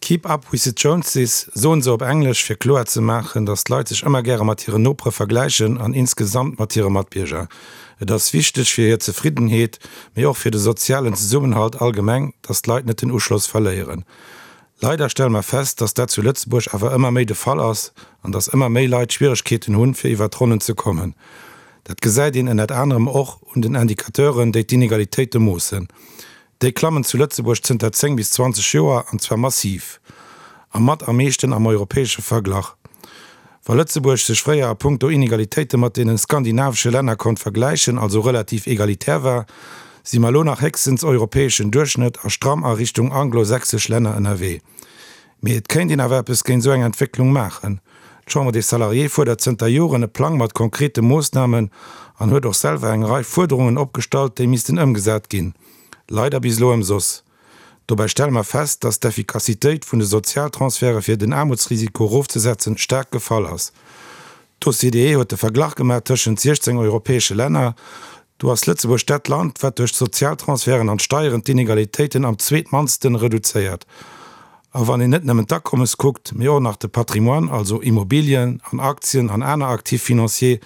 Keep up with the Joneses soen se op Englesch, fir kloer ze maachen, datt d'Leit sech ëmmer gäre mat hiren Nopere vergläichen an insgesamt mat hire Matbierger. Et ass wichteg fir hir Zefriddenheet, mee och fir de sozialen Zesummenhalt allgemeng, datt d'Leit net den Uschloss verléieren. Leider stelle mer fest, datt dat zu Lëtzebuerg awer ëmmer méi de Fall ass an datt ëmmer méi Leit Schwieregkeeten hunn, fir iwwer d'Ronnen ze kommen. Dat gesäit een ënnert anerem och un den Indicateuren, déi d'Inegalitéite moossen. Déi klammen zu Lëtzebuerg zënter 10 bis 20 Joer, an zwar massiv. A mat am meeschten am europäesche Verglach. Wa Lëtzebuerg sech fréier a punkto Inegalitéite mat deene skandinavesche Länner konnt vergläichen, also relativ egalitär war, si mer elo nach héchstens europäeschen Duerchschnëtt a stramm a Richtung anglo-sächsesch Länner ënnerwee. Mee et kéint een awer eppes géint esou eng Entwécklung maachen. D'Chambre des Salariés fuerdert zënter Joren e Plang mat konkrete Moossnamen an huet och selwer eng Rei Fuerderungen opgestallt, déi missten ëmgesat ginn. Leider bis elo ëmsoss. Dobäi stelle mer fest, dass d'Effikassitéit vun de Sozialtransferte fir den Aarmutsrisiko erofzesetzen staark gefall ass. D'OCDE huet de Verglach gemaach tëschent 16 europäesche Länner. Do ass Lëtzebuerg dat Land, wat duerch d'Sozialtransferten an d'Steieren d'Inegalitéiten am zweetmannsten reduzéiert. A wann een net nëmmen d'Akommes kuckt, mee och nach de Patrimoine, also Immobilien an Aktien an aner Actifs financiers,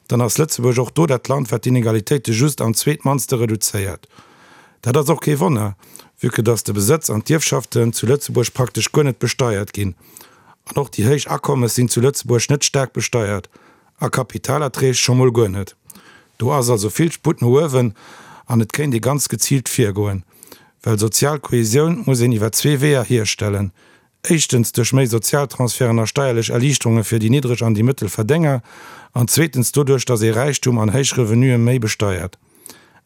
dann ass Lëtzebuerg och do dat Land, wat d'Inegalitéite just am zweetmannste reduzéiert. Dat ass och kee Wonner, vue que dass de Besëtz an d'Ierfschaften zu Lëtzebuerg praktesch guer net besteiert ginn. An och déi héich Akommes sinn zu Lëtzebuerg net staark besteiert, a Kapitalerträg scho mol guer net. Do ass also vill Sputt no uewen an et kéint ee ganz geziilt virgoen. Well sozial Kohesioun muss een iwwer zwee Weeër hierstellen, éischtens duerch méi Sozialtransferten a steierlech Erliichterunge fir déi niddreg an déi mëttel Verdénger an zweetens doduerch, datt ee Räichtum an héich Revenue méi besteiert.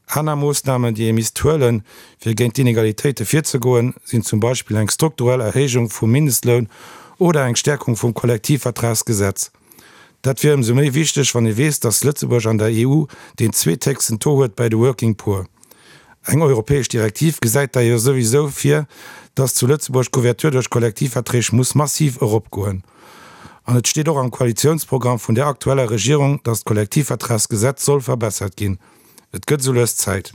Aner Moossnamen, déi ee misst huelen, fir géint d'Inegalitéite virzegoen, sinn zum Beispill eng strukturell Erhéijung vum Mindestloun oder eng Stäerkung vum Kollektivvertragsgesetz. Dat wier ëmsou méi wichteg, wann ee weess, datt Lëtzebuerg an der EU deen zweethéchsten Taux huet bäi de Working Poor. Eng europäesch Direktiv gesäit d'ailleurs souwisou vir, datt zu Lëtzebuerg d'Couverture duerch Kollektivverträg muss massiv eropgoen. An et steet och am Koalitiounsprogramm vun der aktueller Regierung, datt d'Kollektivvertragsgesetz soll verbessert ginn. Et gëtt esou lues Zäit.